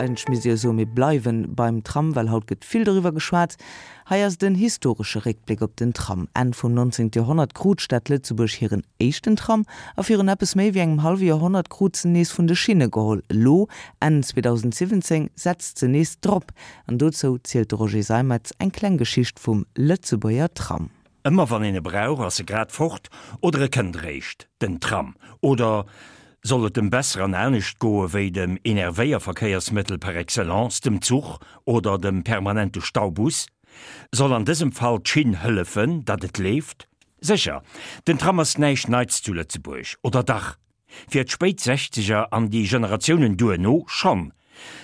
Eigentlech misst ee jo soen, mir bleiwen beim Tram, well haut gëtt vill doriwwer geschwat. Hei ass et en historesche Réckbléck op den Tram. Enn vum 19. Joerhonnert krut d'Stad Lëtzebuerg hiren éischten Tram a virun eppes méi wéi engem hallwe Joerhonnert krut se nees vun de Schinne geholl. Elo, Enn 2017, setzt se nees drop. An dozou zielt de Roger Seimetz eng kleng Geschicht vum Lëtzebuerger Tram. Ëmmer wann een e brauch, ass e grad fort oder e kënnt eréischt, den Tram. Oder soll et em besser an anescht goe wéi dem Enervéierverkéiersmëttel par excellence, dem Zuch oder dem permanente Staubus? Soll an dësem Fall d'Schinn hëllefen, datt et leeft? Sécher, den Tram ass näischt Neits zu Lëtzebuerg, oder dach? Fir d'spéit Sechzeger an déi Generatiounen duerno schonn.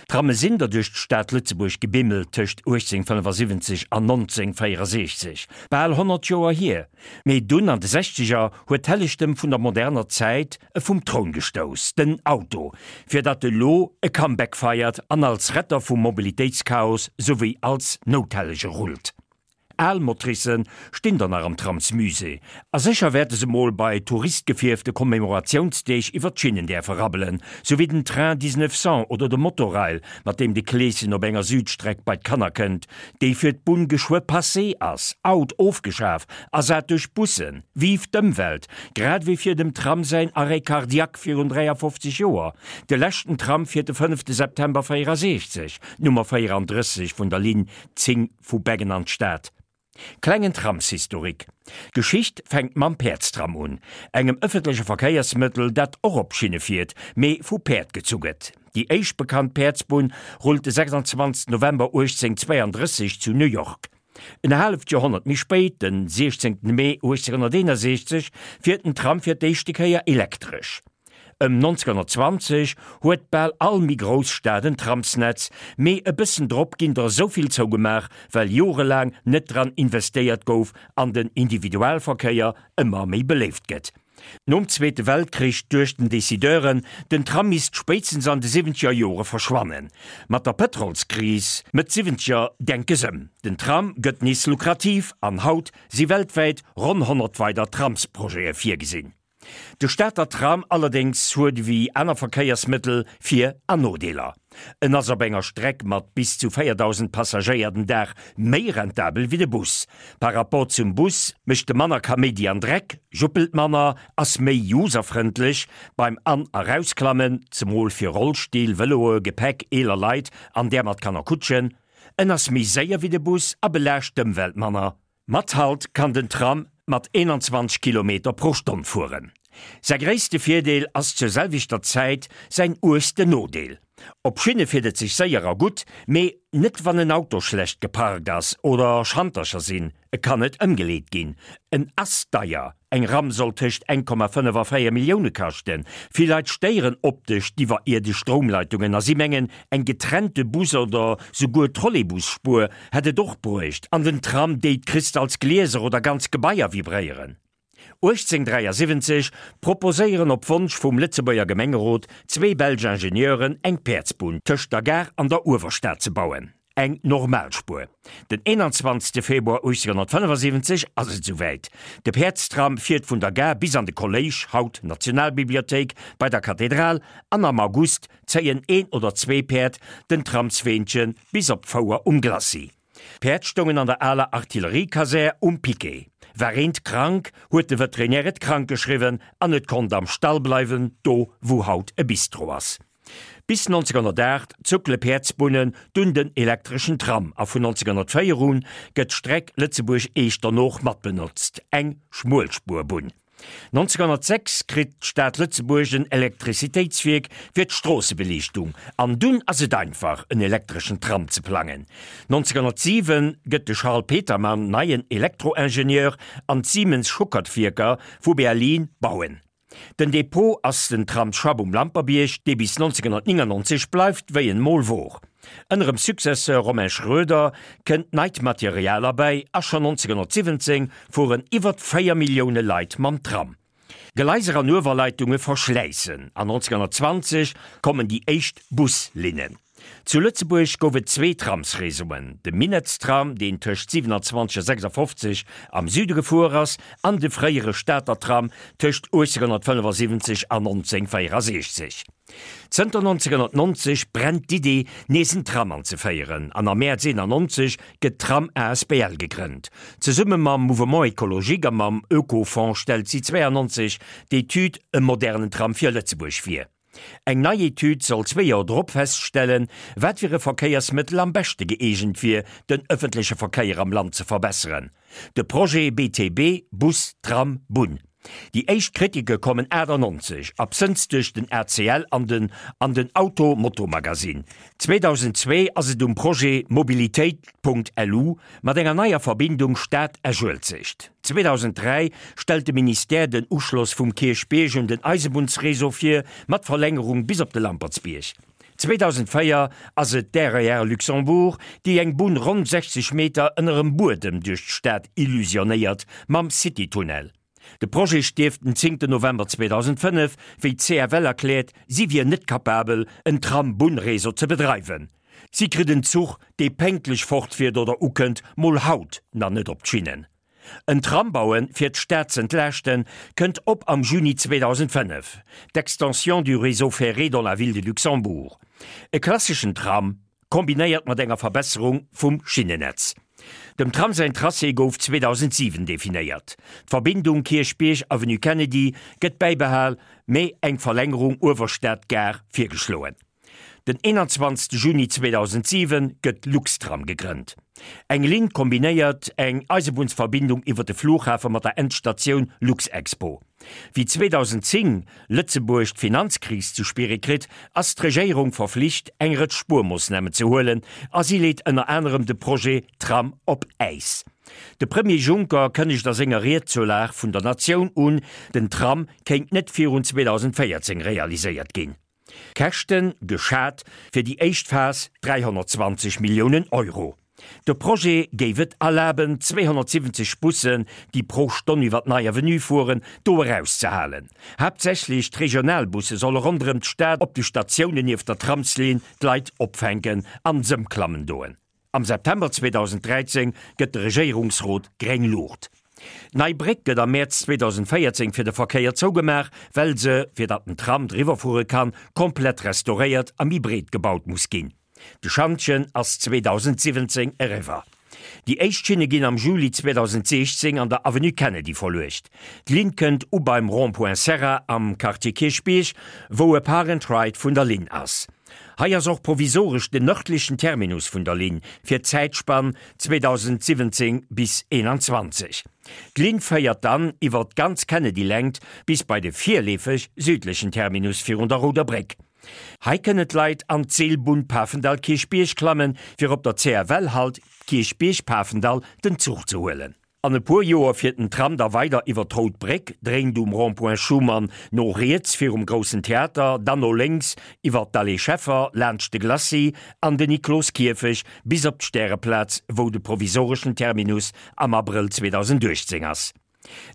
Tramme sinn der duerch d'Stad Lëtzebuerg gebimmelt tëscht 1875 an 1964, bal 100 Joer hier. Mee dunn an de Sechzeger huet d'Hellegtem vun der moderner Zäit e vum Troun gestouss, den Auto, fir datt e lo e Comeback feiert an als Retter vum Mobilitéitschaos souwéi als Nouthellege rullt. Al Motricen stinn der nach am Tramsmusée, a sécher wäerte se mol bei touristgefierfte Commemoratiounsdeeg iwwer d'Schinnen däerfe rabbelen, sou wéi den Train 1900 oder de Motorail, mat deem de Kleeschen op enger Südstreck bei d'Kanner kënnt, déi fir d'Bunn geschwë passé ass, out, ofgeschaf, ersat duerch Bussen. Vive d'Ëmwelt! Grad ewéi fir dem Tram säin Arrêt cardiaque virun 53 Joer. De leschten Tram fiert de fënnefte September 64, d'Nummer 34 vun der Linn 10 Vu Beggen an d'Stad. Klengen Tramshistorik. D'Geschicht fänkt mam Päerdstram un, engem ëffentleche Verkéiersmëttel, dat och op Schinne fiert, mee vu Päerd gezu gëtt. Déi éischt bekannt Päerdsbunn rullt de 26 November 1832 zu New York. En haaleft Joerhonnert méi spéit, den 16 Mee 1861, fiert den Tram fir d'éischte Kéier elektresch. Ëm 1920 huet bal all méi grouss Stad en Tramsnetz, mee e bëssen drop ginn der esou vill zougemaach, well jorelaang net dran investéiert gouf an den Individualverkéier ëmmer méi beléift gëtt. Nom Zweete Weltkrich duechten Decideuren, den Tram misst spéitstens an de siwwenzeger Jore verschwannen. Mat der Pëtrolskris Mëtt Siwwenzeger denke s'ëm, den Tram gëtt nees lukrativ an haut si weltwäit ronn 100 weider Tramsprojete virgesinn. De Stater Tram allerdéngs huet ewéi aner Verkéiersmëttel Vir an Nodeeler. En ass op enger Streck mat bis zu 4.000 Passagéier den Dag méi rentabel wéi de Bus. Par rapport zum Bus mécht e manner Kaméidi an Dreck, juppelt manner, ass méi userfrëndlech beim An a Rausklammen, zemol fir Rollstill, Vëloe, Gepäck, eeler Leit an där mat Kannerkutschen. En ass méi séier wéi de Bus a belaascht d'Ëmwelt manner. Mat Halt kann den Tram mat 21 Kilometer pro Stonn fueren. Säi gréisste Virdeel ass zur selwechter Zäit säin uergsten Nodeel. Op Schinne fiert et sech séier a gutt, mee net wann en Auto schlecht geparkt ass oder Schantercher sinn, e kann net ëmgeleet ginn. En ass deier, Eng Ram soll tëscht 1,5 a 4 Millioune kaschten. Vill Leit stéieren optesch d'iwwerierdesch Stroumleitungen a si mengen, eng getrennte Bus oder souguer Trolleybus-Spuer hätt et och bruecht an den Tram déit Kristalsglieser oder ganz Gebaier vibréieren. 1873 proposéieren op Wonsch vum Lëtzebuerger Gemengerot zwee belsch Ingenieuren eng Päerdsbunn tëscht der Gare an der Uewerstad ze bauen. Eng Normalspuer. Den 21 Februar 1875 ass et souwäit. De Päerdstram fiert vun der Gare bis an de Kolléisch, haut Nationalbibliothéik, bei der Kathedral, an am August zéien een oder zwee Päerd den Tramsweenche bis op d'Fouer um Glacis. D'Päerd stoungen an der aler Artilleriekasär um Piquet. War eent krank, huet de Veterinär et krank geschriwwen an et konnt am Stall bleiwen, do wou haut e Bistro ass. Bis 1908 zuckele Päerdsbunnen, dunn den elektreschen Tram a vun 1904 un gëtt d'Streck Lëtzebuerg-Echternach mat benotzt, eng Schmuelspuerbunn. 1906 kritt d'Stad Lëtzebuerg en Elektrizitéitswierk fir d'Stroossebeliichtung an dunn ass et einfach en elektreschen Tram ze plangen. 1907 gëtt de Charles Petermann neien Elektroingenieur an d'Siemens-Schuckert-Wierker vu Berlin bauen. Den Depot ass den Tramsschapp um Lampertbierg, dee bis 1999 bleift wéi en mol wor. Ënnerem Successeur Romain Schroeder kënnt neit Material erbäi a schonn 1917 fueren iwwert 4 Millioune Leit mam Tram. Gleiser an Uewerleitunge verschläissen an 1920 kommen déi éischt Buslinnen. Zu Lëtzebuerg gouf et zwee Tramsreseauen, de Minettstram, deen tëscht 27 a 56 am Süde gefuer ass, an de fréiere Stater Tram tëscht 1875 an 1964. Zënter 1990 brennt d'Idee, nees en Tram anzeféieren, an am Mäerz 91 gëtt d'Tram asbl gegrënnt. Zesumme mam Mouvement Ecologique a mam Oekofonds stellt si 92 d'Etüd E modernen Tram fir Lëtzebuerg vir. Eng nei Etüd soll zwee Joer drop feststellen, wat fir e Verkéiersmëttel am beschte gëeegent wier, den ëffentleche Verkéier am Land ze verbesseren. De Projet BTB, Bus, Tram, Bunn. Déi éischt Kritike kommen 98, absënns duerch den ACL an den an den Auto Moto Magazine. 2002 ass et um Projet Mobilitéit. Lu mat enger neier Verbindung Stad-Esch-Uelzecht. 2003 stellt de Ministère den Uschloss vum Kierchbierg un den Eisebunnsreseau vir, mat Verlängerung bis op de Lampertsbierg. 2004 ass et d'RER Luxembourg, déi eng Bunn ronn 60 Meter ënnerem Buedem duerch d'Stad illusionéiert, mam City-Tunnel. De Projet stierft den zéngten November 2005, wéi d'CFL erkläert, si wier net capabel, en Tram-Bunn-Réseau ze bedreiwen. Si kritt en Zuch, dee pénktlech fortfiert oder ukënnt, mol haut nach net op d'Schinnen. En Tram bauen, fir d'Stad z'entlaaschten, kënnt op am Juni 2005, d'Extension du réseau ferré dans la ville de Luxembourg. E klasseschen Tram, kombinéiert mat enger Verbesserung vum Schinnenetz. Dem Tram säin Tracé gouf 2007 definéiert. D'Verbindung Kierchbierg-Avenue Kennedy gëtt bäibehal, mee eng Verlängerung Uewerstad-Gare virgeschloen. Den 21 Juni 2007 gëtt Luxtram gegrënnt. Eng Linn kombinéiert eng Eisebunnsverbindung iwwer de Flughafe mat der Endstatioun Luxexpo. Wéi 2010 Lëtzebuerg d'Finanzkris ze spiere kritt, ass d'Regéierung verflicht, eng Rëtsch Spuermoossnamen ze huelen a si leet ënner anerem de Projet Tram op Äis. De Premier Juncker kënnegt a senger Ried zur Lag vun der Natioun un, den Tram kéint net virun 2014 realiséiert ginn. Käschten, geschat fir déi éischt Phas 320 Milliounen Euro. De Projet géif et erlaben, 270 Bussen, déi pro Stonn iwwer d'Nei Avenue fueren, do erauszehalen. Haaptsächlech d'Regionalbusse solle ronderëm d'Stad op de Statiounen nieft der Tramslinn d'Leit opfänken an s'ëmklammen doen. Am September 2013 gëtt de Regéierungsrot gréng Luucht. D'Nei Bréck gëtt am Mäerz 2014 fir de Verkéier zougemaach, well se, fir datt den Tram driwwer fuere kann, komplett restauréiert a méi breet gebaut muss ginn. De Schantjen ass 2017 eriwwer. Déi éischt Schinne ginn am Juli 2016 an der Avenue Kennedy verluecht. D'Linn kënnt u beim Rond-point Serra am Quartier Kierchbierg, wou e Park and Ride vun der Linn ass. Hei ass och provisoresch den nërdlechen Terminus vun der Linn fir d'Zäitspann 2017 bis 21. D'Linn féiert dann iwwer d'ganz Kennedy-Längt bis bei de virleefeg südlechen Terminus virun der Rouder Bréck. Hei kënnen d'Leit an d'Seelbunn Pafendall-Kierchbierg klammen, fir op der CFL-Halt Kierchbierg-Pafendall den Zuch ze huelen. An e puer Joer fiert den Tram da weider iwwer d'Rout Bréck, dréint um Rond-point Schuman no riets virum Groussen Theater, dann no lénks iwwer d'Allée Scheffer, laanscht de Glacis an den Nikloskierfech bis op d'Stäreplaz, wou de provisoreschen Terminus am Abrëll 2018 ass.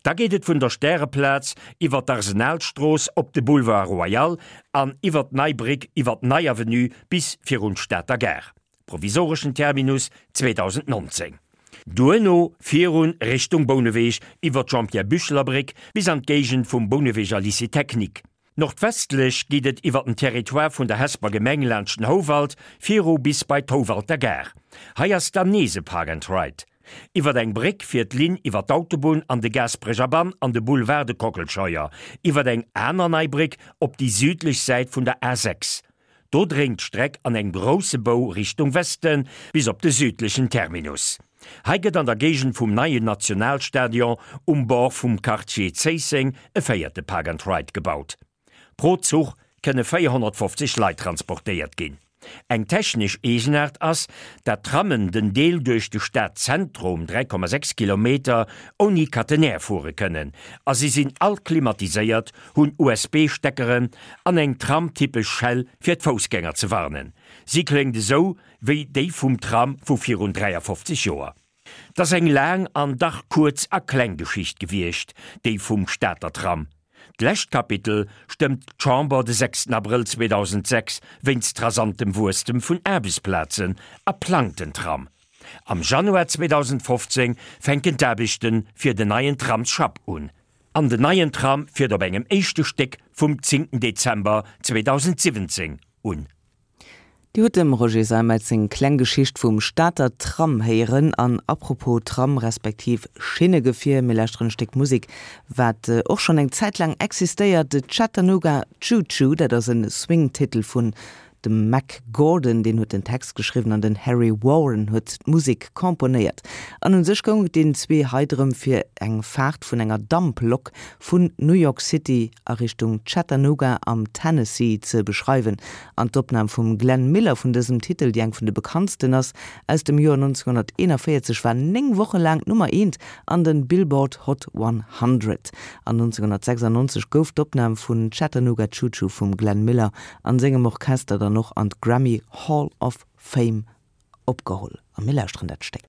Da geet et vun der Stäreplaz iwwer d'Arsenalstrooss op de Boulevard Royal an iwwer d'Nei Bréck iwwer d'Nei Avenue bis virun d'Stater Gare. Provisoreschen Terminus 2019. Duerno virun Richtung Bouneweg iwwer d'Jean-Pierre Bücheler Bréck bis an d'Géigend vum Bouneweger Lycée Technique. Nordwestlech geet et iwwer den Territoire vun der Hesper Gemeng laanscht den Houwald viru bis bei d'Houwalter Gare. Hei ass dann nees e Park and Ride. Iwwer eng Bréck fiert d'Linn iwwer d'Autobunn an de Gaasperecher Bann an de Boulevard de Kockelscheuer, iwwer eng aner nei Bréck op déi südlech Säit vun der A6. Do dréint d'Streck an engem grousse Bou Richtung Westen bis op de südlechen Terminus. Hei gëtt an der Géigend vum neien Nationalstadion um Bord vum Quartier Zéisseng e véierte Park and Ride gebaut. Pro Zuch kënne 450 Leit transportéiert ginn. Eng technesch Eegenaart ass, dat d'Trammen den Deel duerch de Stadzentrum, 3,6 Kilometer, ouni Catenaire fuere kënnen a si sinn all klimatiséiert hunn USB-Steckeren an eng tramtypesch Schell fir d'Foussgänger ze warnen. Si kléngt esou wéi déi vum Tram vu virun 53 Joer. 't ass eng laang an dach kuerz a kleng Geschicht gewiescht, déi vum Stater Tram. D'lescht Kapitel stëmmt d'Chamber de sechsten Abrëll 2006 wéinst rasantem Wuesstem vun Aarbechtsplazen a plangt den Tram. Am Januar 2015 fänken d'Aarbechte fir den neien Tramsschapp un. An den neien Tram fiert op engem éischte Stéck vum zéngten Dezember 2017 un. Dir hutt dem Roger Seimetz seng kleng Geschicht vum Stater Tram héieren. An apropos Tram respektiv Schinnegefier, mir lauschteren e Stéck Musek, wat och schonn eng Zäit laang existéiert, de Chattanooga Choo Choo. Dat ass e Swing-Titel vun dem Mack Gordon, deen huet den Text geschriwwen an den Harry Warren huet d'Musek komponéiert. An un sech goung et deenen zwee hei drëm fir eng Faart vun enger Damplok vun New York City a Richtung Chattanooga am Tennessee ze beschreiwen. An d'Opnam vum Glenn Miller vun dësem Titel, déi eng vun de bekanntsten ass, aus dem Joer 1941, war 9 Woche laang d'Nummer eent an den Billboard Hot 100. An 1996 gouf d'Opnam vun Chattanooga Choo Choo vum Glenn Miller an sengem Orchester dann och an d'Grammy Hall of Fame opgeholl. A mir lauschteren dat Stéck.